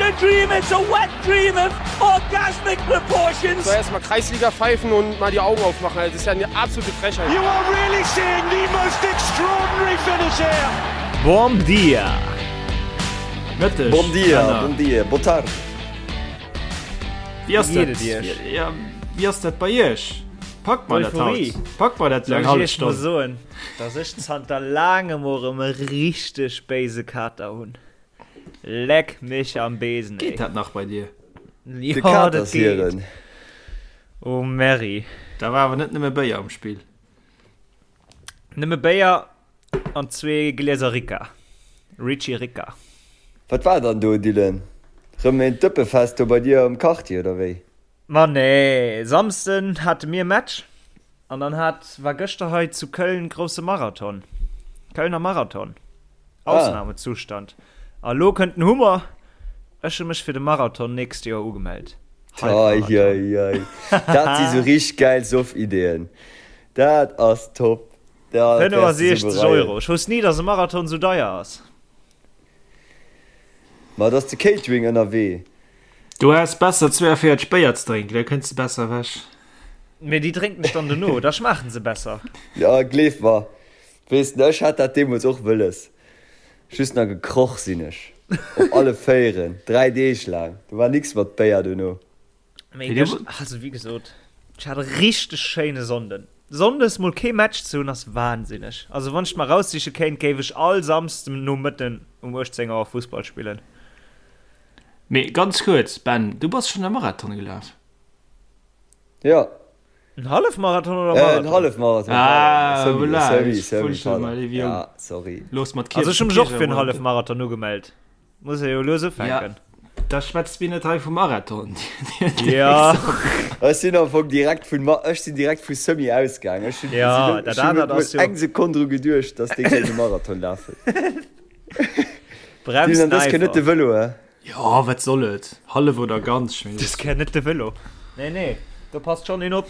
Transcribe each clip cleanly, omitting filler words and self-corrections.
a dream, it's a wet dream of orgasmic proportions. So erstmal Kreisliga pfeifen und mal die Augen aufmachen. Das ist ja eine absolute Frechheit. You are really seeing the most extraordinary finish here. Bom dia! Mëtteg. Bom dia, bom dia, boa tarde. Wéi ass Wéi dat? geet et Iech? Ja, wéi ass dat bei Iech? Packt mer dat haut? Euphorie. Packt mer dat Soll eng ech hallef Iech mol Stonn? soen, dass ech zanter laangem och erëm e richteg béise Kater hunn. Leck mech am Besen, ey. Geet dat nach bei dir? De Jo, Kater dat ass geet. hiren. Oh Merri. Da war awer net nëmme Béier am Spill. Nëmme Béier an zwee Glieser Ricca. Ricci Ricca. Wat war dann do, Dylan? Rëm een Dëppefest do bei dir am Quartier, oder wéi? Ma nee, Samsden hate mir Match an dann hat, war gëschter hei zu Köln grousse Marathon. Kölner Marathon. Ausnahmezustand. A lo kënnt den Hummer, ech hu mech fir de Marathon nächst Joer ugemellt. Halbmarathon. Eieiei. Dat si sou richteg gäil Soff-Ideeën. Dat ass top. Dat wäers de sou 65 bereien. Euro. Ech wousst ni, dass e Marathon sou deier ass. Ma et ass de Catering ënnerwee. Du häss besser 42 Béier ze drénken, da kënns de besser ewech. Mee déi drénken ech dann dono, da schmaachen se besser. Jo, gleef mer. Weess de, ech hat dat deemools och wëlles. Just nach gekroch sinn ech. Op alle Véieren. 3 Deeg laang. Do war nix mat Béier dono. Mee gëscht, also wéi gesot, ech hat e richteg schéine Sonnden. Sonndes mol kee Match ze hunn ass wahnsinneg. Also wann ech et mer eraussiche kéint, géif ech all Samsden Nomëtten um 18 Auer Fussball spillen. Mee ganz kuerz, Ben, du bass schonn e Marathon gelaf? Jo. En Hallefmarathon oder Äh, Marathon? en Hallefmarathon, Ah, pardon. Semi, voilà, Semi, ich Semi, wollt schon pardon. mal, liebe Jung. Ja, sorry. Looss mat Also ech hu mech och fir en Kierch- Hallefmarathon ugemellt. Muss ee jo lues ufänken. Ja, da schwätzt mir net hei vum Marathon. Ja. Ech sinn am Fong direkt vun Ma ech sinn direkt vu Semi ausgaang. Ech hunn Ja, sinn, dat ech hunn anert net ass mol jo eng Sekonn dru geduecht, dass dee kéint e Marathon lafen. Bremst Dylan, dës Kéier net de einfach. Vëlo, hä? Jo, wat soll et? Hallef oder ganz, ech mengen, Dës Kéier net de Vëlo. Nee, nee, do passt schonn een op.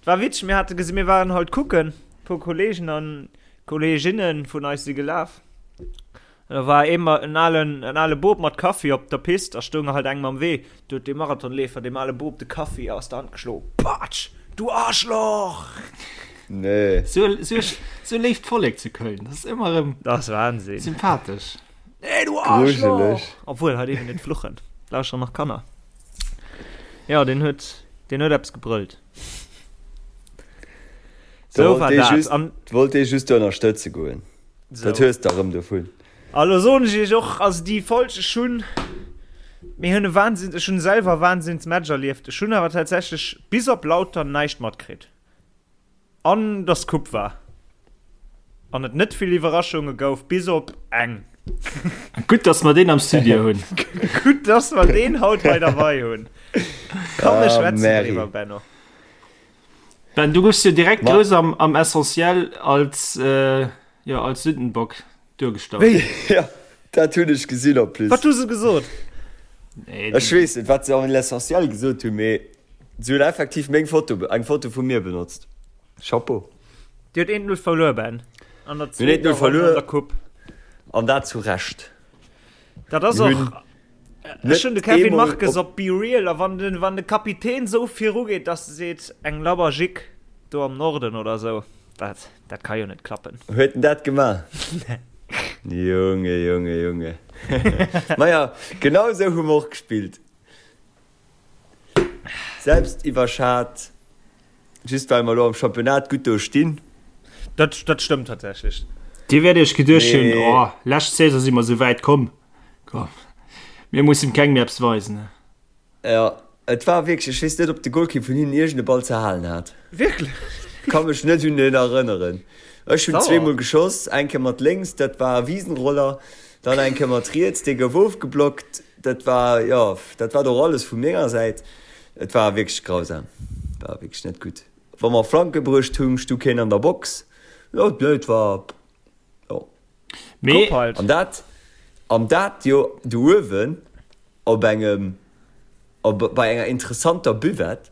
Et war witzeg, mir hate gesi mir waren halt kucken, e puer Kolleegen an Kolleeginne vun eis si gelaf. An da war ee ma en alen, en ale Bop mat Kaffi op der Pist a stoung halt engem am Wee. Du huet dee Marathonleefer deem ale Bop de Kaffi aus der Hand geschloen. Patsch! Du Arschloch! Nee. Sou, sou, sou léift Vollek zu Köln, dat ass ëmmer erëm Dat ass Wahnsinn. sympathesch. Nee, du Arschloch! Grujeleg. Obwuel, hei dierf een net fluchen. Lauschteren nach Kanner. Jo, deen huet, deen huet eppes gebrëllt. Da Sou wollt war dee dat. just, An wollt dee just ënnerstëtze goen. sou. Dat hues de erëm dovun. A lo soen ech iech och, also déi Folg, ech hunn, mir hunn e Wahnsinn, ech hunn selwer e Wahnsinnsmatch erlieft. Ech hunn awer tatsächlech bis op Lautern näischt matkritt. An dass Coupe war. An et net vill Iwwerraschunge gouf, bis op eng. Gutt, dass mer deen am Studio hunn. Gutt, dass mer deen haut hei derbei hunn. Komm, mir Ah, schwätzen Mary. driwwer, Benno. Ben, du goufs jo direkt Ma- grouss am, am Essentiel als, äh, jo, als Sündenbock duergestallt. Wéi? Ja, dat hunn ech gesinn en plus. Wat hu se gesot? Nee, Ech weess net, wat se am L'Essentiel gesot hunn, mee se hunn effektiv meng Foto, eng Foto vu mir benotzt. Chapeau. Dir hutt 1-0 verluer, Ben. An der Mir hunn 1-0 zweeter Ronn verluer. an der Coupe. An dat zu Recht. Dat ass Mir och. hunn Ech hunn de net Kevin eemol Marques op op Be Real a wann den, wann de Kapitän esou virugeet, dass e seet, eng labber Jick do am Norden oder esou, dat, dat ka jo net klappen. Huet en dat gemaach? Junge, Junge, Junge. Maja, genau esou hu mer och gespillt. Selbst iwwerschat, just well mer elo am Championnat gutt do stinn. Dat, dat stëmmt tatsächlech. Dir wäert iech geduecht hunn, Mee. Oh, lescht Saison si mer sou wäit komm, komm, mir mussen kengem méi eppes weisen. Jo, et war wierklech, ech weess net, ob de Golkipp vun hinnen iergend e Ball ze halen hat. Wierklech? Ka mech net un en erënneren. Ech hunn Sauer. zweemol geschoss, eng Kéier mat lénks, dat war e Wiesenroller, dann eng Kéier mat riets, dee gouf ofgeblockt. Dat war, jo, dat war och alles vu menger Säit. Et war wierklech grausam, war wierklech net gutt. Wa mer Flanke bruecht hunn, stu keen an der Box. Jo, nee, et war, jo. Mee. Coupe halt. An dat, an dat jo do uewen op engem, op, bei enger interessanter Buvette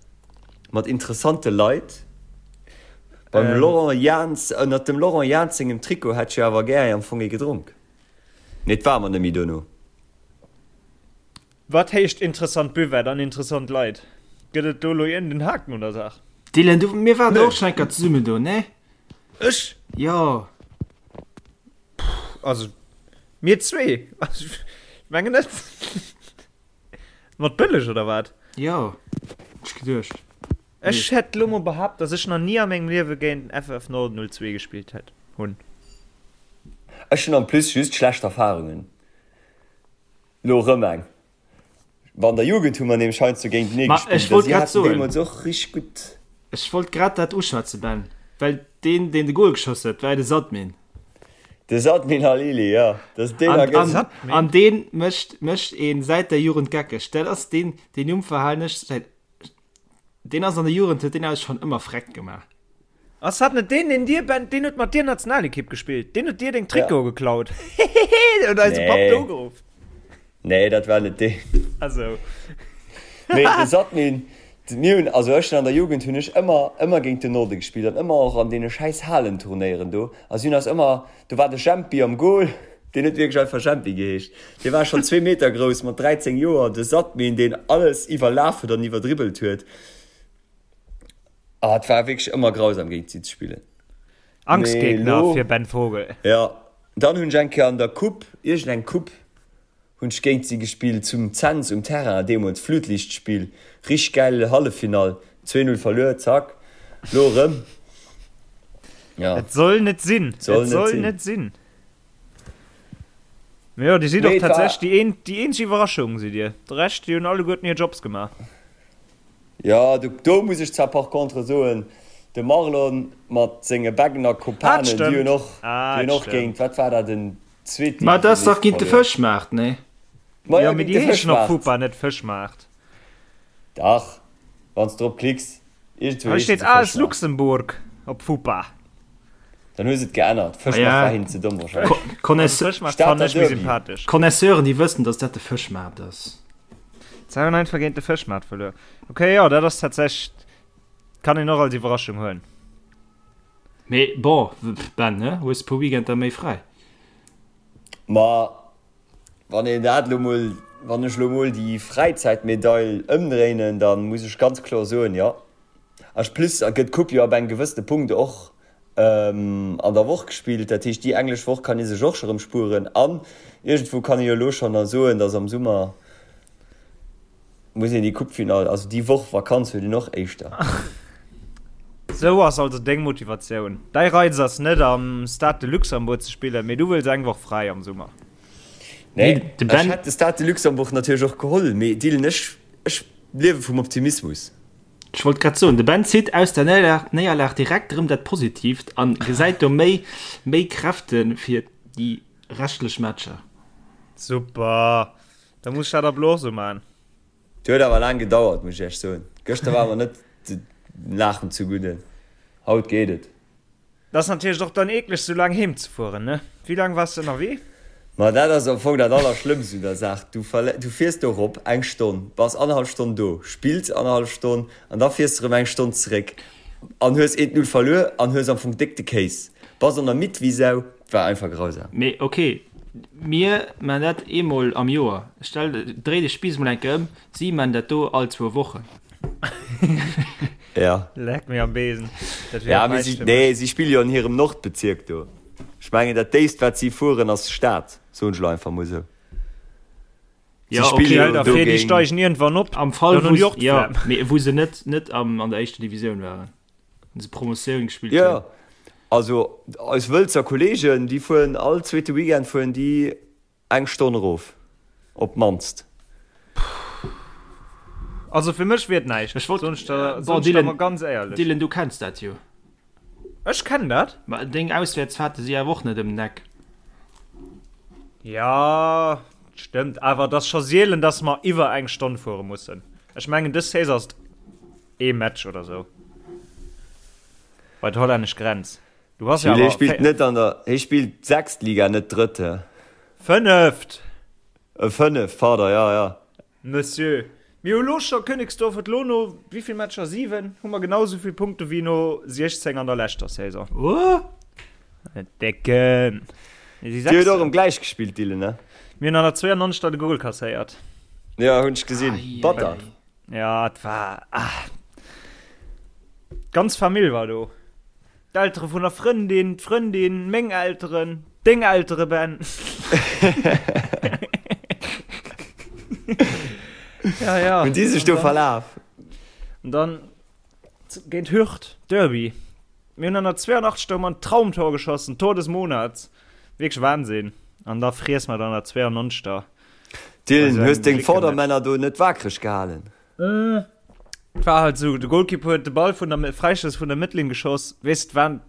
mat interessante Leit. Beim Laurent Jans, ënnert dem Laurent Jans sengem Trikot hätt ech jo awer gär am Fong ee gedronk. Mee et war mer net méi dono. Wat heescht interessant Buvette an interessant Leit? Gëtt et do elo iergend en Haken un der Saach? Dylan, du, mir waren och schon eng Kéier zesummen do, ne? Ech? Jo. Puh, also mir zwee? Also, ech mengen net. Mat Bëlleg oder wat? Jo, hunn ech geduecht. Ech hätt lo mol behaapt, dass ech nach ni a mengem Liewe géint den FF Norden 02 gespillt hätt, hunn. Ech hunn en plus just schlecht Erfahrungen. Lo rëm eng. Wa an der Jugend hu mer nämlech heiansdo géintenee Ma ech gespillt a wollt si grad haten soen. deemools och richteg gutt. Ech wollt grad dat uschwätzen, Ben, well deen, deen de Gol geschoss huet, war jo de Sadmin. De Sadmin Halili, jo, dass deen An, a an, gëtt. Sadmin? an deen mécht, mécht een säit der Jugend geckeg. Dat ass deen, deen Numm verhalen ech säit, deen ass an der Jugend, huet deen eis schonn ëmmer freck gemaach. Ass dat net deen, deen dir, Ben, deen huet mat dir Nationalekipp gespillt, deen huet dir deng Ja. Trikote geklaut? Hehehe, deen huet eise Papp do Nee. ugeruff. Nee, dat war net deen. Also. Mee de Sadmin, mir hunn, also ech hunn an der Jugend hunn ech ëmmer, ëmmer géint den Norde gespillt an ëmmer och an deene schäiss Halenturnéieren do. A si hunn eis ëmmer, do war de Jempi am Goal, deen huet wierklech einfach Jempi geheescht, dee war schonn zwee Meter grouss mat 13 Joer, de Sadmin, deen alles iwwerlaf huet an iwwerdribbelt huet. Ah, et war wierklech ëmmer grausam géint si ze spillen. Mee Angstgegner elo, fir Ben Vogel. jo, dann hunn ech eng Kéier an der Coupe, iergendeng Coupe, hunn ech géint si gespillt zum Cents um Terrain, deemools Flutlichtspill, richteg gäil Halleffinall, 2, 0 verluer, zack, lo erëm, jo. Et soll net sinn, et Soll net soll sinn. net sinn. Mee jo, dir sidd och Mee et war. tatsächlech déi een, déi eenzeg Iwwerraschung sidd dir. De Rescht, déi hunn alleguerten hir Jobs gemaach. Jo, do, do muss ech zwar par contre soen, de Marlon mat senge Beggener Ah, dat Kopanen, déi hunn stëmmt. och, Ah, déi hunn dat och géint, stëmmt. wat war dat, en Ma dat ass dach Zweetdivisionist géint de verluer. Fëschmaart, nee? Ma Jo, jo, mee géint déi de heeschen op Fëschmaart. FUPA net Fëschmaart. Dach, wann s de drop klicks, iergendwou Hei heeschen steet se AS Fëschmaart. Luxembourg op FUPA. Dann hu se et geännert. Ah Fëschmaart ja, war hinnen ze domm wahrscheinlech. Also Connaisseur, Fëschmaart Stater fannen ech méi Derby. sympathesch. Connaisseuren, déi wëssen, dass dat de Fëschmaart ass. 92 géint de Fëschmaart verluer. Ok, jo, dat ass tatsächlech, kann een och als Iwwerraschung huelen. Mee bon, Ben, ne, hues e puer Weekender méi fräi. Ma wann een dat elo mol, wann ech elo mol déi Fräizäitmedail ëmdréinen, da muss ech ganz kloer soen, jo. En plus gëtt d'Coupe jo ab engem gewëssene Punkt och an der Woch gespillt. Dat heescht, déi englesch Woch kann ee sech och scho rëm spueren. An iergendwou kann ee jo elo schonn da soen, datt am Summer muss een déi Coupefinall, also déi Woch Vakanz huet een och éischter. Sou ass also deng Motivatioun. Däi Reiz ass net am Stade de Luxembourg ze spillen, mee du wëlls eng Woch fräi am Summer. Nee, De ech Ben. hätt de Stade de Luxembourg natierlech och geholl, mee Dylan, ech, ech liewe vum Optimismus. Ech wollt grad soen, de Ben zitt aus der Néierlag direkt erëm dat Positiivt an gesäit do méi méi Kräfte fir déi reschtlech Matcher. Super, da muss ech dat ab elo och sou man. Et huet awer laang gedauert, muss ech iech soen. Gëschter war mer net de Laachen zugudde, haut geet et. Et ass natierlech och dann eekleg sou laang heem ze fueren, ne? Wéi laang waars de ënnerwee? Ma dat ass am Fong dat Allerschlëmmst un der Saach, du du fiers do erop eng Stonn, bass annerhallef Stonn do, spills annerhallef Stonn an da fiers de erëm eng Stonn zeréck an hues eent Null verluer an hues am Fong déck de Kéis, bass an der midd wéi Sau. Et war einfach grausam. Mee ok, mir man dat eemol am Joer. Stell, dréi de Spiiss mol eng Kéier ëm, si man dat do all zwou Wochen. Ja. Leck mir am Besen. Dat wier Ja, och mee näischt si, fir nee, mech. si spille jo an hirem Nordbezierk do. Ech mengen, dat déifst, wat si fueren, ass Stad, soen ech elo einfach mol esou. Si Ja, spille okay. jo Stell der do vir, déi géing. steigen iergendwann op, Am Fall, dann wou hunn déi se, och ja, d'Flemm. mee wou se net, net am, an der éischter Divisioun waren, wou se Promotioun gespillt Jo, hunn. also eis Wëlzer Kolleegen, déi fueren all zweete Weekend fueren déi Eng Stonn erof, op d'mannst. Also fir mech wier et näischt, Ech wollt, soen ech der, bon, soen ech der Dylan, mol ganz éierlech. Dylan, du kenns dat jo. Ech kennen dat. Ma deng Auswäertsfahrte si awer och net ëm den Eck. Jo, stëmmt, awer et ass scho sielen, dass mer iwwer eng Stonn fuere mussen. Ech mengen dës Saison ass et ee Match oder sou bei d'hollännesch Grenz. Du bass jo Jules, hie awer spillt net an der, hie spillt sechst Liga, net drëtt, hä? Fënneft! E fënneft, pardon, ja, ja. Monsieur, mir hu lo scho, Königsdorf huet lo no wéivill Matcher, 7, hu mer genau esou vill Punkte wéi no 16 an der leschter Saison. What? Decken! Mir si Dir huet och Sechsten. erëm gläich gespillt, Dylan, ne? Mir hunn an der 92. de Gol kasséiert. Ja, hunn ech gesinn. Batter. Ja, et war. Ah. D'ganz Famill war do. D'Eltere vun der Frëndin, d'Frëndin, meng Elteren, deng Eltere, Ben. ja, ja. Hunn déi sech do verlaf? An dann géint Hürth, Derby. Mir hunn an der 82. Hu mer en Traumtor geschossen, Tor des Monats. Wierklech Wahnsinn. An da friess mer et an der 92. Dylan, hues deng Vordermänner do net waakreg gehalen? Et war halt esou, de Goalkeeper huet de Ball vun der Fräistouss vun der Mëttlinn geschoss. Weess, et waren,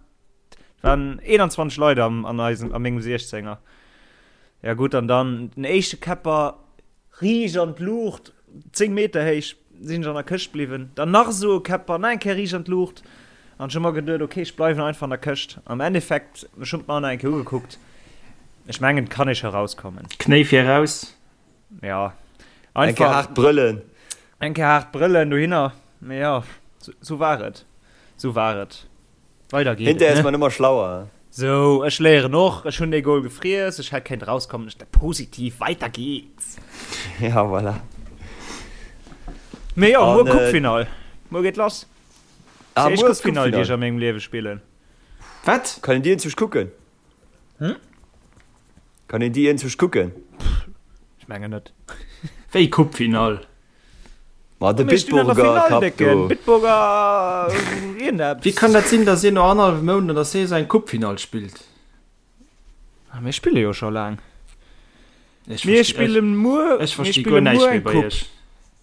et waren 21 Leit am, an eisem, a mengem 16er. Ja gutt, an dann den éischte Käpper riicht an d'Luucht, 10 Meter héich, sinn ech an der Këscht bliwwen. Dann nach esou e Käpper, nach eng Kéier riicht an d'Luucht. An ech hu mer geduet, ok, ech bleiwen einfach an der Këscht. Am Endeffekt, ech hunn et mer nach eng Kéier ugekuckt, ech mengen, et kann ee scho rauskommen. Knéi vir raus. Ja. Eng Kéier haart brëllen. Eng Kéier haart brëllen dohinner. Mee jo, sou war et. Sou war et. Weider geet et, Hinterher ass man ëmmer schlauer. Sou, ech léieren och. Ech hunn dee Goal gefriess. Ech hätt kéint rauskommen. Ech positiv, weider geht's. Ja, voilà. Mee jo, muer Coupe-Finall. Muer geet lass. Ah, Déi éischt muer ass Coupe-Finall, déi Coupe-Finall. ech a mengem Liewe spillen. Wat? Kann een déi enzwousch kucken? Hm? Kann een déi enzwousch kucken? Ech mengen net. Wéi Coupe-Finall? Ma de Mir stinn an der Bitburger Finall, Cup Décken. do. Bitburger iergendeppes. Wéi kann dat sinn, datt een no annerhallwem Mount an der Saison eng Coupe-Finall spillt? Ah, mir spille jo scho laang. Ech Mir versti- spille muer, ech mir versti spille guer näischt muer méi eng bei Coupe. iech.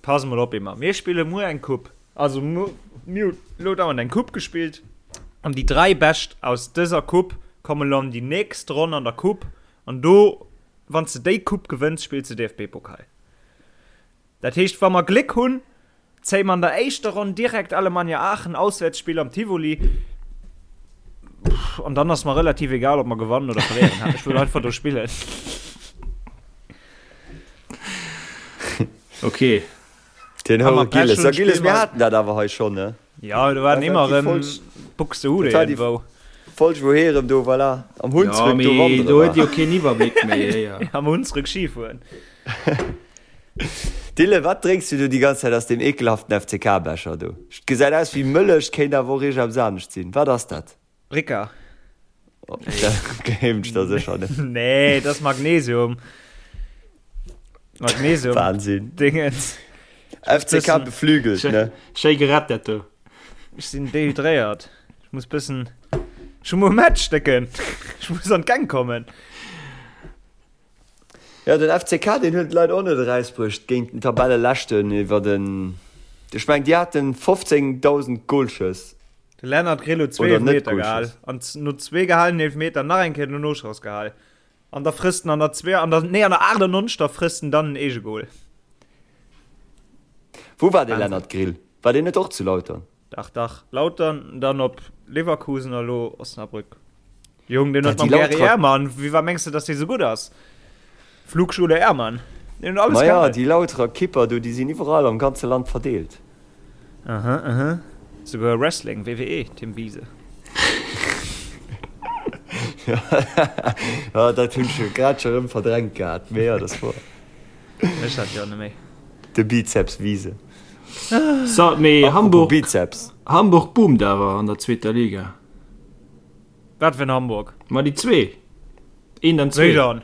Pass mol op, Emma. Mir spille muer eng Coupe. Also mir hunn elo dauernd eng Coupe gespillt an déi 3 Bescht aus dëser Coupe kommen elo an déi nächst Ronn an der Coupe an do, wann s de déi Coupe gewënns, spills de DFB-Pokal. Dat heescht, wa mer Gléck hunn, zéie mer an der éischter Ronn direkt Alemannia Aachen, Auswäertsspill am Tivoli. An dann ass mer relativ egal, ob mer gewannen oder verléieren. Ech wëll einfach do spillen. Okay. Den Wa Houre mer Pech Gilles. hunn, Ja, Gilles, spille mir mer. haten dat awer hei schonn, ne? Ja, do waren Dat ëmmer war déi erëm Folg, Buxtehude dat war déi iergendwou. Folg, wou hee erëm do, voilà, am Ja, Hunsrück do mee wandere do huet war. jo keen Iwwerbléck méi, héier. Am Hunsrück Skifueren. Dylan, wat drénks du do déi ganz Zäit aus deem ekelhaften FCK-Becher do? Et gesäit aus wéi Mëllech, kéint awer och iergendeppes anescht sinn. Wat ass dat? Ricca. Oh, dat gleewen ech der sécher net. Nee, dat ass Magnesium. Magnesium. Wahnsinn. Dingens. FCK beflügelt, ne? Schéi gerett, dat do. Ech sinn dehydréiert. Ech muss bëssen. Ech hu muer Match, Décken. Ech muss an d'Gäng kommen. Jo, den FCK, deen huet d'Leit och net erausbruecht géint den Tabelleleschten iwwer den, ech mengen, déi haten 15.000 Golschëss. De Lennart Grill huet zwee Oder net Eelfmeter gehal Golschëss. an no zwee gehalenen Eelfmeter nach eng Kéier den Noschoss gehal. An da frësst en an der zwee, an der, nee, an der 98. frësst en dann en Eegegol. Wou war dee Wahnsinn. Lennart Grill? War deen net och zu Lautern? Dach, dach, Lautern, dann op Leverkusen a lo Osnabrück. Jong, deen Ja, huet mam déi Gary Lauterer. Ehrmann, wéi war mengs de, dass dee sou gutt ass? Flugschule Ehrmann. Deen huet alles Maja, gehaen. déi Lauterer Kipper do, déi sinn iwwerall am ganze Land verdeelt. Aha, aha. Souguer Wrestling, WWE, Tim Wiese. Ja, dat hunn ech grad scho rëm verdrängt gehat, mee jo, dat ass wouer. Ech dat jo net méi. De Bizeps Wiese. So, mee Apropos Hamburg, Bizeps. Hamburg boomt awer an der zweeter Liga. Wat fir en Hamburg? Ma déi zwee. Eent an Wéi zwee. dann?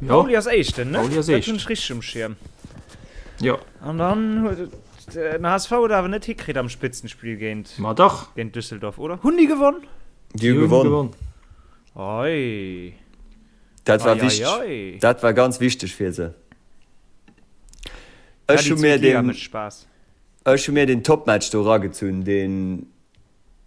Jo. Pauli ass Éischten, ne? Pauli ass Dat Éischten. hunn ech richteg um Schierm. Jo. An dann huet et den HSV huet awer net hikritt am Spitzenspill géint, Ma dach. géint Düsseldorf, oder? Hunn déi gewonn? Déi hu Déi hunn gewonn. gewonn. Ei. Dat war Ei, ei, wichteg. ei. Dat war ganz wichteg fir se. Ja, Ech déi hu mir zweet Liga den, mécht Spaass. ech hu mir den Topmatch do eragezunn, deen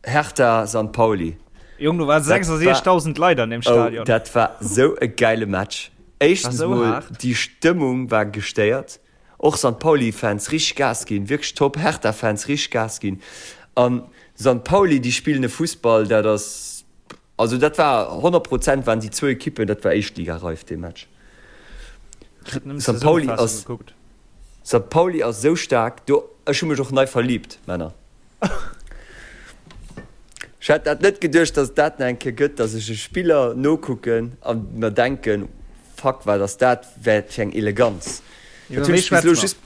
Hertha Sankt Pauli. Jong, do waren Dat war, 66.000 Leit an deem oh, Stadion. dat war sou e geile Match. War Éischtens sou mol, haart. déi Stëmmung war gestéiert. Och Sankt Pauli Fans richteg Gas ginn, wierklech top. Hertha Fans richteg Gas ginn. An Sankt Pauli, déi spillen e Fussball, dat ass, also dat war 100 Prozent waren déi zwou Ekippen, dat war éischtligareif dee Match. Ech hat nëmmen Sankt Pauli d'Zesummenfassung ass, gekuckt. Sankt Pauli ass sou staark do, ech hu mech och nei verliebt, Männer. Ech hätt dat net geduecht, dass et dat nach eng Kéier gëtt, dass ech e Spiller nokucken a mer denken,. fuck, wat ass dat wat fir eng Eleganz. Iwwer Dat hunn wéi ech bis elo schwätze mer? just,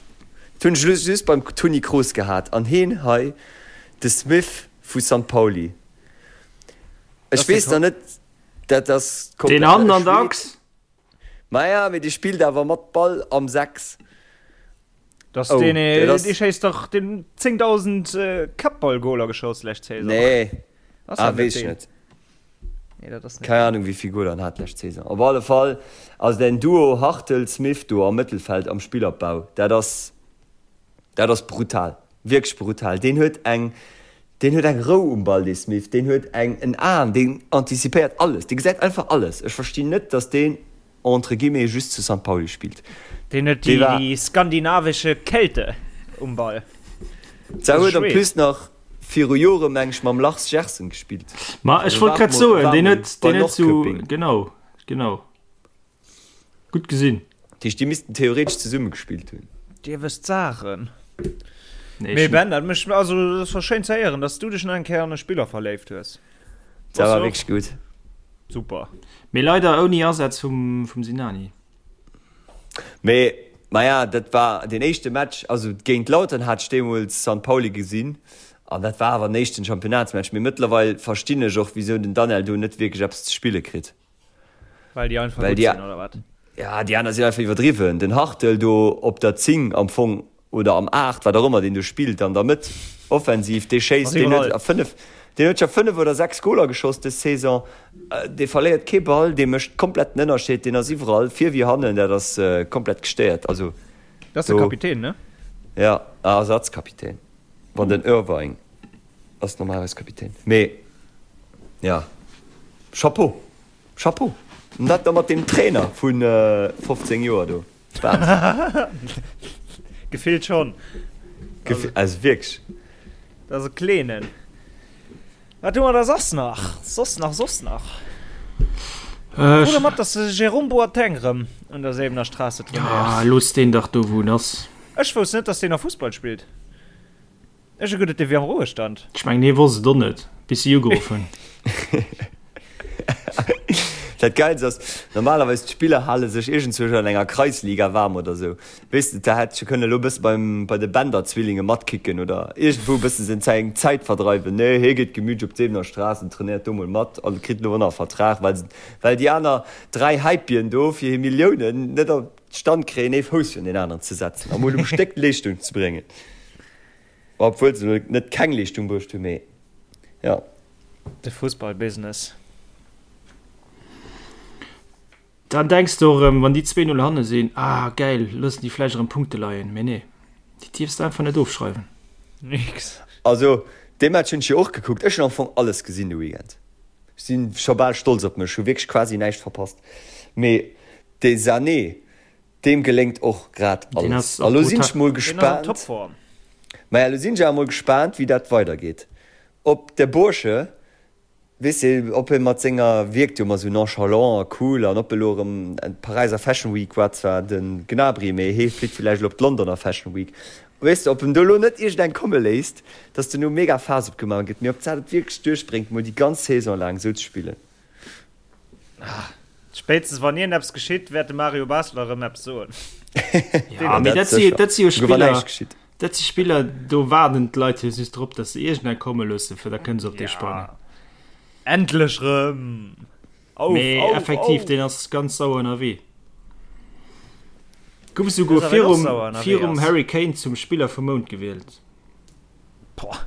dat hunn ech elo just beim Toni Kroos gehat. An heen hei, de Smith vu San Pauli. Dat Ech ass de weess Ko. nach net, dat ass Deen komplett, hannen e an der Schwed. Achs. Maja, mee dee spillt awer mat Ball am 6. Dass Oh, deen, dat ass. dee schéisst dach den 10.000 Kappballgoler geschoss lescht Saison. Nee. Ass Ah, dat net weess ech deen? net. Nee, dat ass net Keng deen. Ahnung, wéi vill Goler en hat lescht Saison. Op alle Fall ass den Duo Hartel-Smith do am Mëttelfeld am Spillopbau, dat ass, dat ass brutal. Wierklech brutal. Deen huet eng, deen huet eng Rou um Ball, dee Smith. Deen huet eng, en Aen, deen antizipéiert alles. Dee gesäit einfach alles. Ech verstinn net, dass deen entre guillemets just zu Sankt Pauli spillt. Deen huet Dee war. déi skandinavische Kälte um Ball. Zwar Dat ass huet en Schwed. plus nach viru Jore meng ech mam Lars Gersen gespillt. Ma ech Also wollt war grad mol, soen, war deen mol huet, bei deen huet zu, Norrköping. genau, genau. Gutt gesinn. Dat heescht, déi missten theoretesch zesumme gespillt hunn. Dir wësst Saachen. Nee, Mee ech Ben, dat mécht, also dat war schéin ze héieren, dass du dech nach eng Kéier an e Spiller verléift hues. Dat Bass war du och? wierklech gutt. Super. Mee leider ouni Asaz vum, vum Sinani. Mee, maja, dat war deen éischte Match, also géint Lautern hat ech deemools Sankt Pauli gesinn an dat war awer den éischten Championnatsmatch. Mee mëttlerweil verstinn ech och, wisou den Daniel do net wierklech eppes ze spille kritt. Well déi einfach Well gutt déi, sinn, oder wat? ja, déi aner sinn einfach iwwerdriwwen. Den Hartel do op der 10 am Fong oder am 8, wat och ëmmer deen do spillt an der Mëtt offensiv, dee Ass schéisst, deen huet iwwerall. a 5, deen huet scho 5 oder 6 Goler geschoss dës Saison. Dee verléiert kee Ball, dee mécht komplett den Ënnerscheed, deen ass iwwerall, vir wéi hannen, dat ass komplett gestéiert. Also Dat ass de do, Kapitän, ne? ja, Ersatzkapitän, wann den Irvine. Ass normalerweis Kapitän. Mee ja, Chapeau, Chapeau. An dat da mat deem Trainer vu 15 Joer do. Wahnsinn. Gefillt schonn. Gefi also wierklech. Dat ass e Kleenen. Wat hu mer da soss nach? Soss nach, soss nach? Äh, Krut der mat, dass de Jérôme Boateng rëm un der Säbener Straße ja, trainéiert? looss deen dach do wou en ass. Ech wousst net, dass deen nach Fussball spillt. Ech hu geduet, dee wier am Ruhestand. Ech mengen hie wosst et och net, bis si ugeruff hunn. Dat Geilst ass, normalerweis d'Spiller hale sech iergendzwousch an enger Kreisliga waarm oder sou. Weess de, da hätt scho kënne elo bësse beim, bei de Bender-Zwillinge matkicken oder iergendwou bësse seng Zäit, Zäit verdreiwen. Nee, hie geet gemütlech op d'Seebener Straass an trainéiert do mol mat an kritt elo och nach e Vertrag, well se, well déi aner 3 Häipien do fir hir Milliounen net op d'Stand kréien, ee Fouss virun deen aneren ze setzen a mol um Stéck Leeschtung ze bréngen. Obwuel se elo net keng Leeschtung bruecht hunn, mee jo. De Fussballbusiness. Dann denks de och erëm, wann déi 2, 0 hanne sinn, ah gäil, loossen déi vläicht erëm Punkte leien. Mee nee, déi dierfs de einfach net ofschreiwen. Nix. Also dee Match hunn ech jo och gekuckt. Ech hunn am Fong alles gesinn de Weekend. Ech si scho bal stolz op mech, hu wierklech quasi näischt verpasst. Mee dee Sané, Deem geléngt och grad alles. A lo sinn ech mol gespaant, maja, lo sinn ech awer mol gespaant, wéi dat weidergeet. Ob de Bursche, weess de, ob e mat senger, wierkt jo ëmmer esou nonchalant a cool, an ob e lo erëm, d'Paräiser Fashion Week war zwar de Gnabry, mee hee flitt villäicht elo op d'Londoner Fashion Week, weess de, ob en do lo net iergendeng komme léisst, dass do no mega Faass opgemaach gëtt, mee ob d'Sat et wierklech duerchbréngt, mol déi ganz Saison laang esou ze spillen. Spéitstens wann iergendeppes geschitt, wäert de Mario Basler erëm eppes soen. Ja, mee dat si, dat si jo Spiller, dat si Spiller, do waarden d'Leit jo just drop, datt se iergendeng komme loossen, fir da kënne se op dee sprangen. Endlech rëm! Auf, mee auf, effektiv, auf. Deen ass ganz sauer ënnerwee. Gouf esouguer virum, virum Harry Kane zum Spiller vum Mount gewielt. Boah.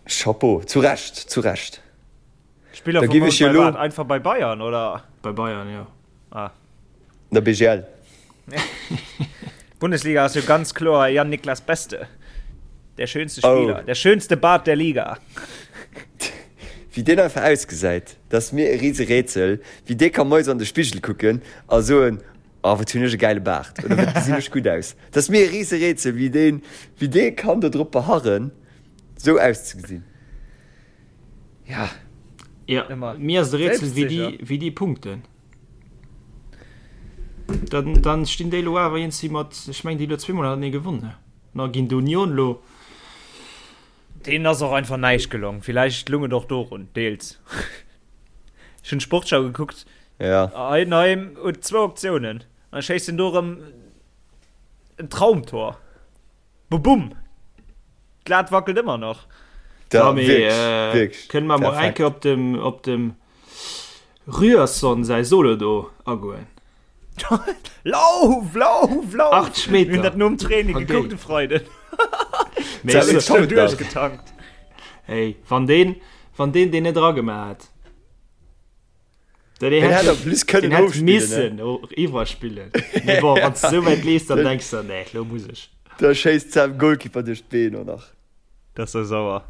Chapeau, zu Recht, zu Recht. Spiller Da vum giff Mount ech jo bei lo. wat? Einfach bei Bayern oder? Bei Bayern, jo. Ah. Der BGL. Bundesliga ass jo ganz kloer Jan Niklas Beste. Der schönste Oh. Spieler, der schönste Bart der Liga. Wéi deen einfach ausgesäit, dat ass mir e rise Rätsel, wéi dee ka moies an de Spigel kucken a soen, Oh, wat hunn ech e gäile Baart oder wat gesinn ech gutt aus. Dat ass mir e rise Rätsel, wéi deen, wéi dee kann do drop beharren, sou auszegesinn. Ja. Ja, Ëmmer mir ass et e Rätsel, wéi déi, selbstsicher. wéi déi punkten. Dann, dann stinn déi elo awer iergendwéi mat, ech mengen, déi elo zweemol hannertenee gewonnen, na ginn d'Union elo. Deenen ass och einfach näischt gelong. Villäicht lung et och dorun, deels. Ech hunn d'Sportschau gekuckt. Ja. Heidenheim huet zwou Optiounen. An schéisst en do erëm en Traumtor. Bubum! D'Lat wackelt ëmmer nach. Da, mee, wierklech, äh, wierklech. Kënne mer mol eng Kéier op dem, op dem Ryerson säi Solo do agoen? Lauf, lauf, lauf! 80 Meter. Mir hunn dat nom Training gekuckt de Freiden. Mee ech sou duerchgetankt. Hey, wann deen, wann deen deen net eragemaach hätt. Den hätt en plus kënnen ofspillen. Missen iwwerspillen. Mee bon, wann s de sou wäit leefs, dann denks de, nee, lo muss ech. Da schéisst s'em Goalkeeper duerch d'Been och nach. Dat ass sou sauer.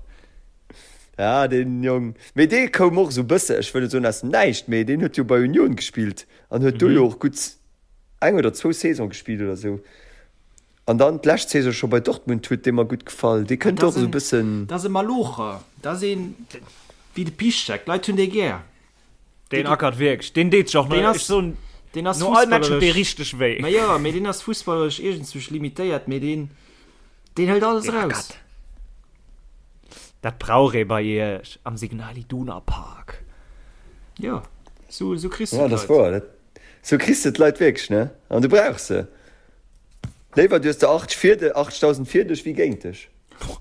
Ja, deen Jong. Mee dee koum och sou bësse, ech wëll net soen aus dem Näischt, mee deen huet jo bei Union gespillt an huet do jo och gutt eng oder zwou Saison gespillt oder sou. An dann d'lescht Saison scho bei Dortmund huet dee mer gutt gefall. Dee kënnt och esou e bëssen. Dat ass e Malocher, dat ass een wéi de Piszczek, d'Leit hunn dee gär. Deen ackert wierklech, deen deet sech och no, ech soen, deen ass no all Match huet dee richteg wéi. Ma jo, mee deen ass fussballeresch iergendzwousch limitéiert, mee deen, deen hëlt alles eraus. Dat brauch ee bei iech am Signal Iduna Park. Jo, sou, sou kriss de d'Leit. Ja, dat ass wouer. Sou kriss de d'Leit wierklech, ne? An du brauchs se. Léiwer du hues der 80 fir de, 80.000 fir dech wéi géint dech.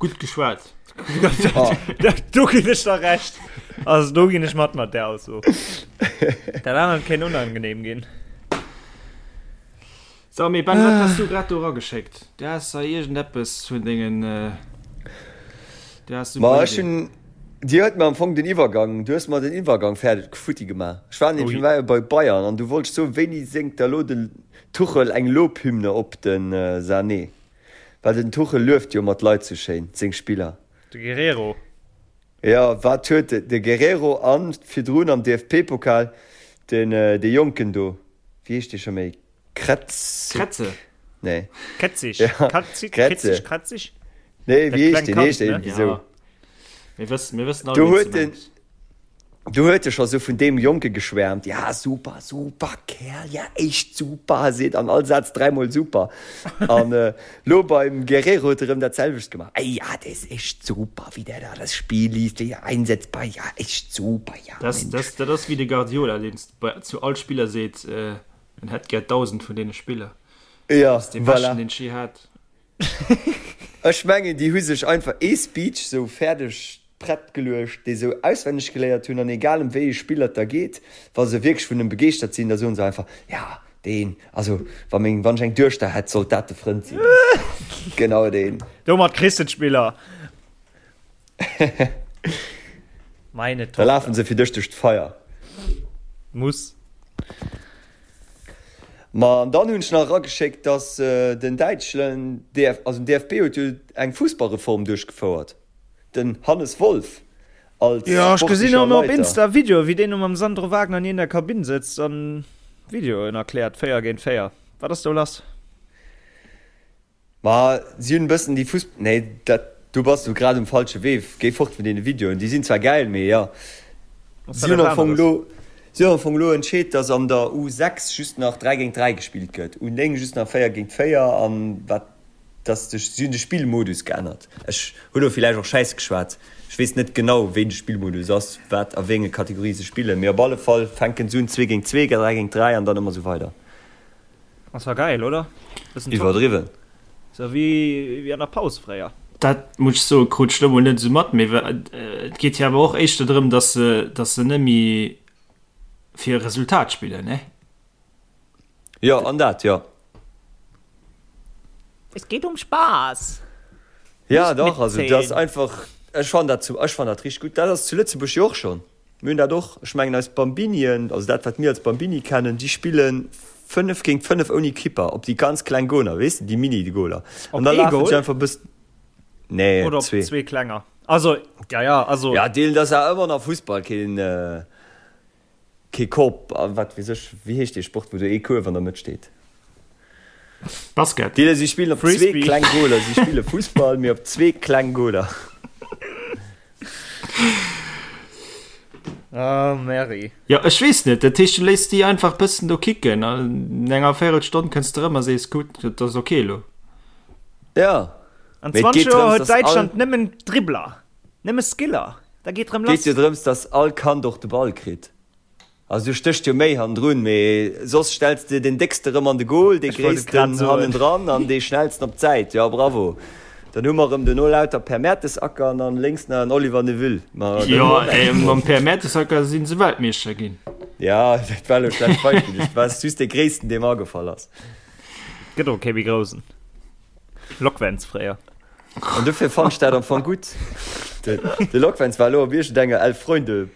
Gutt geschwat. Do ginn ech der Recht. Also do ginn ech mat mat där Ausso. Dat anert kéint unangenehm ginn. So, mee Ben, wat has du grad do erageschéckt? Du has da iergendeppes vun dengen, du has Ma ech hunn, Dir huet mer am Fong den Iwwergang, du hues mer den Iwwergang fäerdeg futti gemaach. Ech war nämlech, mir war jo bei Bayern an du wollt soen, wéini séngt da lo den Tuchel eng Lobhymne op de Sané? Well den Tuchel lueft jo mat Leit sou schéin, seng Spiller. De Guerrero. Jo, wat huet de Guerrero an virdrun am DFB-Pokal den dee Jonken do, wéi heescht dee scho méi? Kretzig? Kretze. Nee. Ketzig. Ja. Katzig, Kretze. Ketzig, Kratzig? Nee, wéi heescht deen? Heescht deen irgendwie sou? Ja. Mir wëssen, mir wëssen all, Do huet den, do huet e scho sou vun deem Jonke geschwärmt, ja super, super Kerl, ja echt super, seet an all Saz dräimol super. An äh, lo beim Guerrero huet e rëm dat selwecht gemaach, ey ja, der ist echt super, wéi der da das Spiel liest, wéi er einsetzbar, ja echt super, ja Das, Mensch. das, dat ass wéi de Guardiola, deen zu all Spiller seet, äh, en hätt gär 1.000 vun deene Spiller. Ja, Dat ass dee voilà. beschten, deen ech je hat. Ech mengen déi hu sech einfach ee Speech sou fäerdeg prett geluecht, dee sou auswenneg geléiert hunn an egal em wéi ee Spiller et da geet, wa se wierklech vun em begeeschtert sinn, da soen se einfach, ja deen, also wa meng, wann ech eng Duechter hätt, sollt dat de Frënd sinn. Genau deen. Domat kriss de d'Spiller. Meine Da lafen se fir dech duerch d'Feier. Muss. Ma an dann hunn ech nach erageschéckt, dass den däitschen DF, also den DFB huet jo eng Fussballreform duerchgefouert, den Hannes Wolf als Jo, ech gesinn sportlecher och op Leiter. Insta Videoe wéi deen do mam Sandro Wagner an der Kabinn sëtzt an Videoen erkläert, 4 géint 4. Wat ass do lass? Ma si hunn e bëssen déi Fuss, nee dat, do bass du grad um falsche Wee, géi fort vun deene Videoen, déi sinn zwar gäil, mee jo. Si hunn am Fong elo, si hunn am Fong elo entscheet, datt an der U6 just nach 3 géint 3 gespillt gëtt, U9 just nach 4 géint 4 an wat, datt de, si hunn de Spillmodus geännert. Ech hu lo villäicht och Schäiss geschwat, ech weess net genau wéi de Spillmodus ass, wat a wéi enge Kategorie se spillen, mee op alle Fall fänken se un 2 géint 2, 3 géint 3 an dann ëmmer esou weider. Ass war geil, oder? Bëssen top. Iwwerdriwwen. Sou wéi wéi an der Paus fréier. Dat muss ech soen, krut ech lo mol net esou mat, mee et geet jo awer och éischter drëm, dass se, dass se net méi fir e Resultat spillen, ne? Jo, an dat, jo. Es geht um Spaß! Ja, dach, also dat ass einfach, ech fannen dat zu, ech fannen dat richteg gutt. Dat ass zu Lëtzebuerg jo och schonn. Mir hunn dat och, ech mengen eis Bambinien, also dat wat mir als Bambini kennen, déi spille 5 géint 5 ouni Kipper op déi ganz kleng Goler, weess de, déi Mini-Goler. Op An da ee lafen Goal? se einfach e bëssen, nee, Oder op zwee. zwee klenger? Also, ja, ja, also. Ja, deelen, dat ass awer ëmmer nach Fussball, keen, kee Korb a wat weess ech, wéi heescht dee Sport, wou do ee Kuerf an der Mëtt steet? Basket. Deelen, si spillen op zwee Frisbee. kleng Goler, si spille Fussball, mee op zwee kleng Goler. Ah, Mary. Jo, ech weess net. Dat heescht, du léiss déi einfach bëssen do kicken an enger Véirelstonn kënns de erëm a sees, gutt, dat ass ok elo. Ja. An Mee et 20 geet Joer drëms, huet dass all. Däitschland nëmmen Dribbler, nëmme Skiller. Da geet rëm Geet lass. jo drëms, dass all Kand och de Ball kritt. Also do stécht jo méi hannendrun, mee soss stells de den déckste rëm an de Goal, dee gréissten hannendran an dee schnellsten op d'Säit. Jo, bravo. Dann hu mer rëm duerno lauter Per Mertesacker an dann lénks nach en Oliver Neuville. Ma Jo, mam Per Mertesacker si se Weltmeeschter ginn. Ja, dat war elo e schlecht Beispill. Dat war just dee gréissten, dee mer agefall ass. Gëtt och kee méi groussen. Lokwenz fréier. An dofir fannt ech dat am Fong gutt. De Lokwenz war elo op iergendenger Elf-Freunde.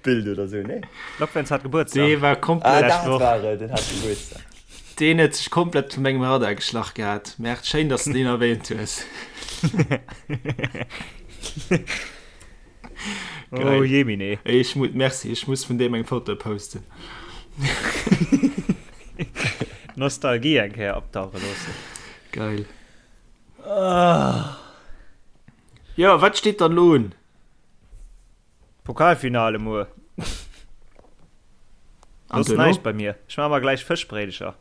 Bild oder sou, nee? Lokwenz hat Gebuertsdag. Dee war komplett. Ah, dat war et, den hat Gebuertsdag. Deen huet sech komplett vu mengem Radar geschlach gehat. Merkt, schéin, dass de deen erwähnt hues. Oh jemine. Ech mu merci, ech muss vun deem eng Foto posten. Nostalgie eng Kéier optauche loossen. Geil. Ah. Jo, wat steet dann elo un? Pokalfinale muer. Soss näischt bei mir. Ech maache mer gläich Fëschbréidecher.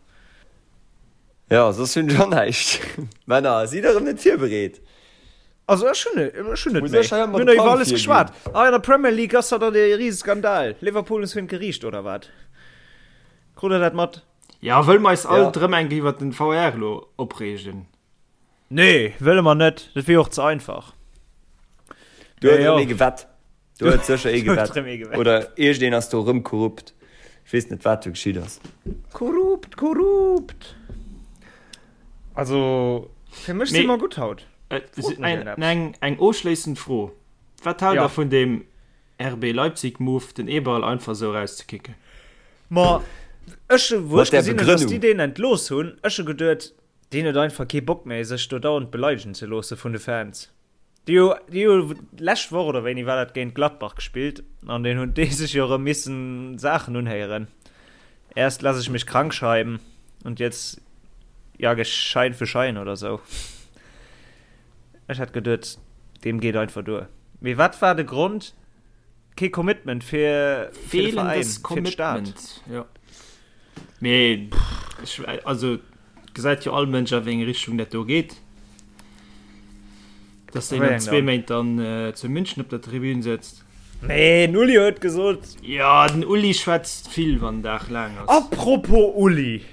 Jo, soss hunn ech och näischt. Männer, sidd erëm net virbereet. Also ech hunn ech hunn net méi. Mir hunn iwwer alles geschwat. Ah, an der Premier League ass dat e Riseskandal. Liverpool ass virun d'Geriicht, oder wat? Krut der dat mat? Ja, wëlle mer eis alt erëm eng Kéier iwwer den VR elo opreegen? Nee, wëlle mer net. Dat wier och ze einfach. Do huet erëm ee gewett. Do huet sécher ee gewett. Oder iergendeen ass do erëm korrupt. Ech weess net, wat do geschitt ass. Korrupt, korrupt! Also, fir mech si mer gutt haut. Eng, eng ofschléissend Fro, Wat haalt der vun deem RB Leipzig-Move, den Eberl einfach esou erauszekicken? Ma ech, wou ech gesinn hunn, dass déi deen entlooss hunn, ech hu geduet, Deen huet einfach kee Bock méi sech do dauernd beleidegen ze loosse vun de Fans. Déi hu déi hu lescht Woch oder wéini war dat géint Gladbach gespillt an deen hunn déi sech jo erëm missen Saachen unhéieren. Erst lass ich mich krank schreiben und jetzt jag ich Schein für Schein oder sou. Ech hat geduet deem geet einfach duer. Mee wat war de Grond? Kee Commitment fir fir de Veräin, fir d'Stad. Jo. Mee ech, also gesäit jo all Mënsch a wéi eng Richtung dat do geet. Dass deen an zwee Méint dann äh, zu München op der Tribün sëtzt. Nee, den Uli huet gesot. Ja, den Uli schwätzt vill, wann den Dag laang ass. Apropos Uli.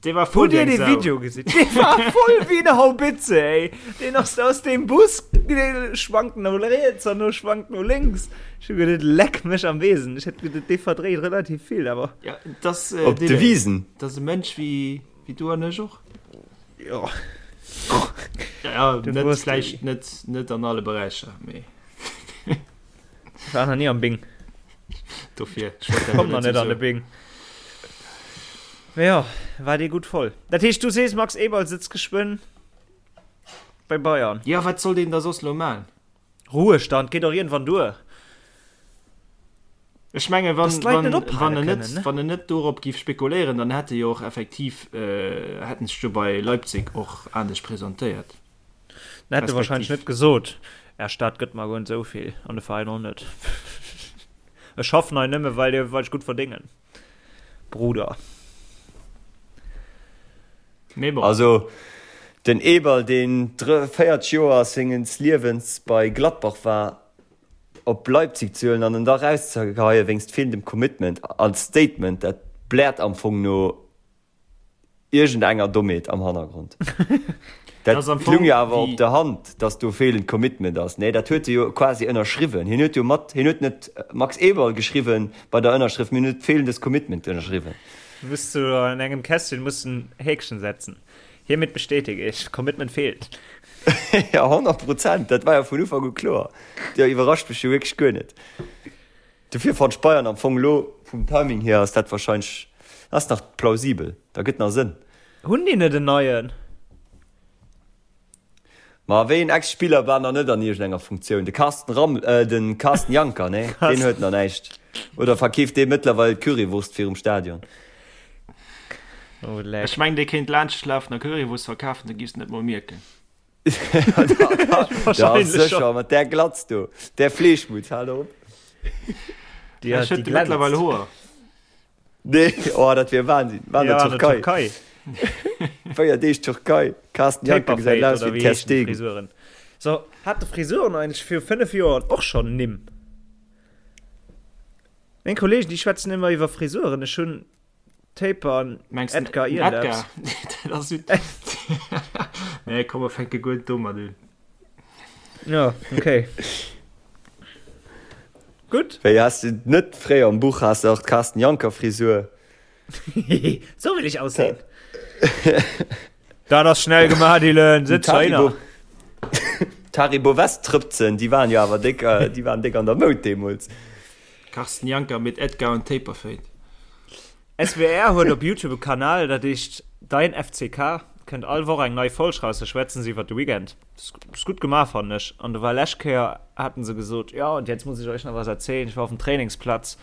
Dee war voll Hutt dir wéi eng dee Sau. Video gesinn? Dee war voll wéi eng Haubitze, ey. Deen ass aus deem Bus, dee schwankt no riets an no schwankt no lénks. Ech hu geduet, leck mech am Besen. Ech hätt geduet, dee verdréit relativ vill, awer. Ja, das, äh, Op de Wisen. Das ass e Mënsch wéi, wéi du an ech och. Jo. Ja, ja, net, vläicht net, net an alle Beräicher, mee. Ech war nach ni am Bing. Dofir, Komm nach net an de Bing. Mee jo, war dee gutt voll. Dat heescht, du sees, Max Eberl sëtzt geschwënn bei Bayern. Jo, wat soll deen da soss lo maan? Ruhestand geet och iergendwann duer. Ech menge wann, wann, wann en net, wann en net dorop giff spekuléieren, dann hätt e jo och effektiv, hätt en sech jo bei Leipzig och anescht presentéiert. Dann hätt e wahrscheinlech net gesot, Är Stad gëtt mer guer net esou vill an de Veräin och net. Ech schaffen hei nëmme well well ech gutt verdéngen, Bruder. Mee bon. Also den Eberl, deen 40 Joer senges Liewens bei Gladbach war, op Leipzig ze huelen an en da rauszegeheie wéinst feelendem Commitment als Statement, dat bläert am Fong no Iergendenger Dommheet am Hannergrond. Dat lung jo awer op der Hand, datt do feelend Commitment ass. Nee, dat huet e jo quasi ënnerschriwwen. Hien huet jo mat, hien huet net Max Eberl geschriwwen bei der Ënnerschrëft, mee hien huet feelendes Commitment ënnerschriwwen. Muss du an engem Kästchen muss en Häkchen setzen. Hiermit bestätige ich, Commitment fehlt. Ja, 100 Prozent, dat war jo vun Ufank u kloer. Dat iwwerrascht mech jo wierklech guer net. Dofir fannt ech Bayern am Fong elo vum Timing hier ass dat wahrscheinlech ass nach plausibel, da gëtt nach Sënn. Hunn déi net en neien? Ma wéi en Ex-Spiller war nach net an iergendenger Funktioun? De Carsten Ramm, äh, den Carsten Janker, nee, deen huet nach näischt. Oder verkeeft dee mëttlerweil d'Currywurst virum Stadion? Oh leck. Ech mengen dee kéint laanschtlafen a Currywurst verkafen, du giffs et net mol mierken. Ja, sécher, mat där Glatz do, där Fleeschmutz, hal op. Déi Ech huet de mëttlerweil Hoer. Nee, oh, dat wier Wahnsinn. War an der Türkei. Türkei. 4 Deeg Türkei. Carsten Janker gesäit aus wéi Ter Stegen. Frisuren. So, hat de Frisuren eigentlech viru 5 Joer och schonn Nimm? Meng Kollegen, déi schwätzen ëmmer iwwer Frisuren. Ech hunn Taper an Mengs du Edgar den Ierlaps. Edgar? Dat ass jo. Nee, komm, mer fänke guer net domat un. Ja, okay. Gutt. Wéi has de net fréier am Buch has de och d'Carsten Janker Frisur? So will ich aussehen. Dat ass schnell gemaach, Dylan. Sëtz heihinner. D'Haribo West-Trëpzen, déi waren jo awer déck, déi waren déck an der Moud deemools. Carsten Janker mit Edgar und Taperfade. SWR huet op Youtube e Kanal, dat heescht Dein FCK. Kënnt all Woch eng nei Folg raus, da schwätzen se iwwer de Weekend. Ass gutt gemaach, fannen ech. An do war lescht Kéier, haten se gesot, ja und jetzt muss ich euch nach was erzählen, ich war auf dem Trainingsplatz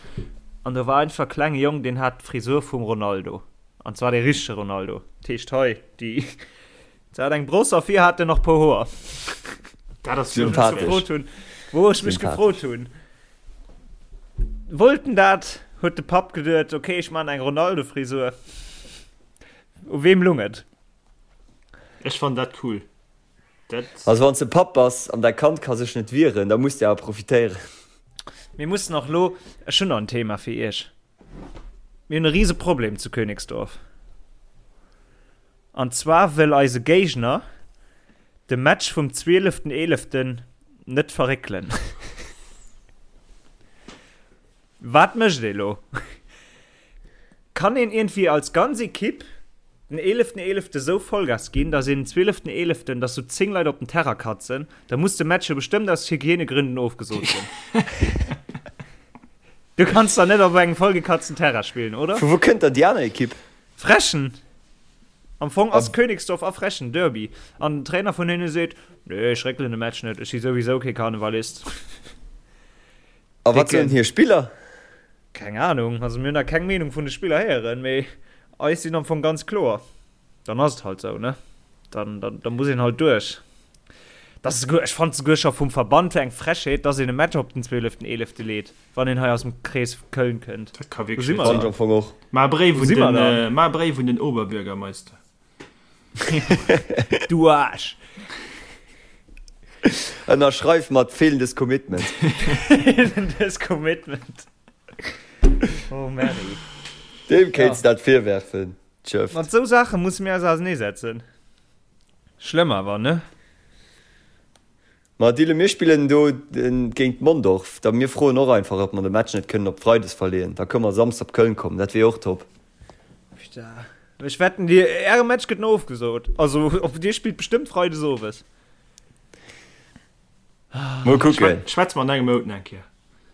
an do war einfach e klenge Jong, deen hat d'Frisur vum Ronaldo. An zwar dee richtege Ronaldo. Dat heescht hei, déi, se hat eng Bross a vir hat en nach puer Hoer. Dat ass Wou ech mech gefrot hunn, wou ech mech gefrot hunn, wollt en dat? Huet de Papp geduet, ok, ech man eng Ronaldo-Frisur. U weem lung et? Ech fannen dat cool. Dat. Also wann s de Papp bass an däi Kand ka sech net wieren, da muss de awer profitéieren. Mir mussen och lo, ech hunn nach en Thema fir iech. Mir hunn e rise Problem zu Königsdorf. An zwar wëll eise Géigner de Match vum 12.11. net verréckelen. Wat mécht ee lo? Kann een iergendwéi als ganz Ekipp den 11.11. esou Vollgas ginn, datt een den 12.11., datt sou 10 Leit op den Terrain katzen, da muss de Match jo bestëmmt aus Hygienegründen ofgesot ginn. Du kanns da net op engem vollgekatzten Terrain spillen, oder? Vu wou kënnt dann déi aner Ekipp? Frechen! Am Fong ass Königsdorf a Frechen Derby. An den Trainer vun hinne seet, Nee, ech réckelen de Match net, ech si souwisou kee Karnevalist. A wat soen hir Spiller? Keng Ahnung, also mir hunn nach keng Meenung vun de Spiller héieren, mee eis sinn am Fong ganz kloer. Dann ass et halt sou, ne? Dann, dann, dann muss een halt duerch. Dat ass souguer, ech fannen et souguer scho vum Verband eng Frechheet, dass een e Match op den zwëeleften eelefte leet, wann een hei aus dem Krees Köln kënnt. Dat ka Wou wierklech si net mer Fand sinn. ech am Fong och. Maach e Bréif Wou un si mer den, dann? maach e Bréif un den Oberbürgermeister. Du Aarsch! Ënnerschreif mat fehlendes Commitment. Fehlendes Commitment. Oh Mary. Deem kéints dat virwerfen. Tschëfft. Mat sou Saache musse mir eis auserneesetzen. Schlëmm awer, ne? Ma Dylan, mir spillen do géint Mondorf. Da mir froen och einfach, ob mer de Match net kënnen op Freides verleeën. Da kënne mer Samsdes op Köln kommen. Dat wier och top. Putain. Ech wetten, dir, äre Match gëtt no ofgesot. Also, dir spillt bestëmmt Freides owes. Mol kucken. Schwätze mer an engem Mount nach eng Kéier.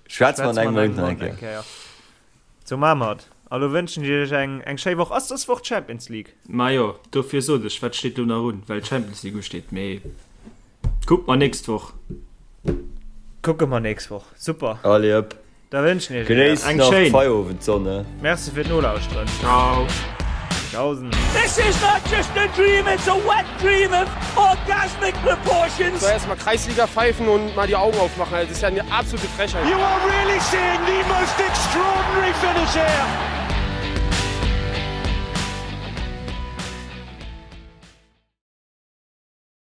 Schwätze mer an engem Mount nach eng Kéier. Sou maache mer et. A lo wënschen ech iech eng eng schéi Woch. Ass dës Woch d'Champions League? Majo, dofir sot ech, wat steet lo nach un, well d'Champions League usteet. Mee kucke mer nächst Woch. Kucke mer nächst Woch. Super. Allez hop. Da wënschen ech iech Genéisst Eng nach schéin. d'Feierowendssonne. Merci fir d'Nolauschteren. Ciao. Tschaußen. This is not just a dream, it's a wet dream of orgasmic proportions. So erstmal Kreisliga pfeifen und mal die Augen aufmachen. Das ist ja eine absolute Frechheit. You are really seeing the most extraordinary finish here.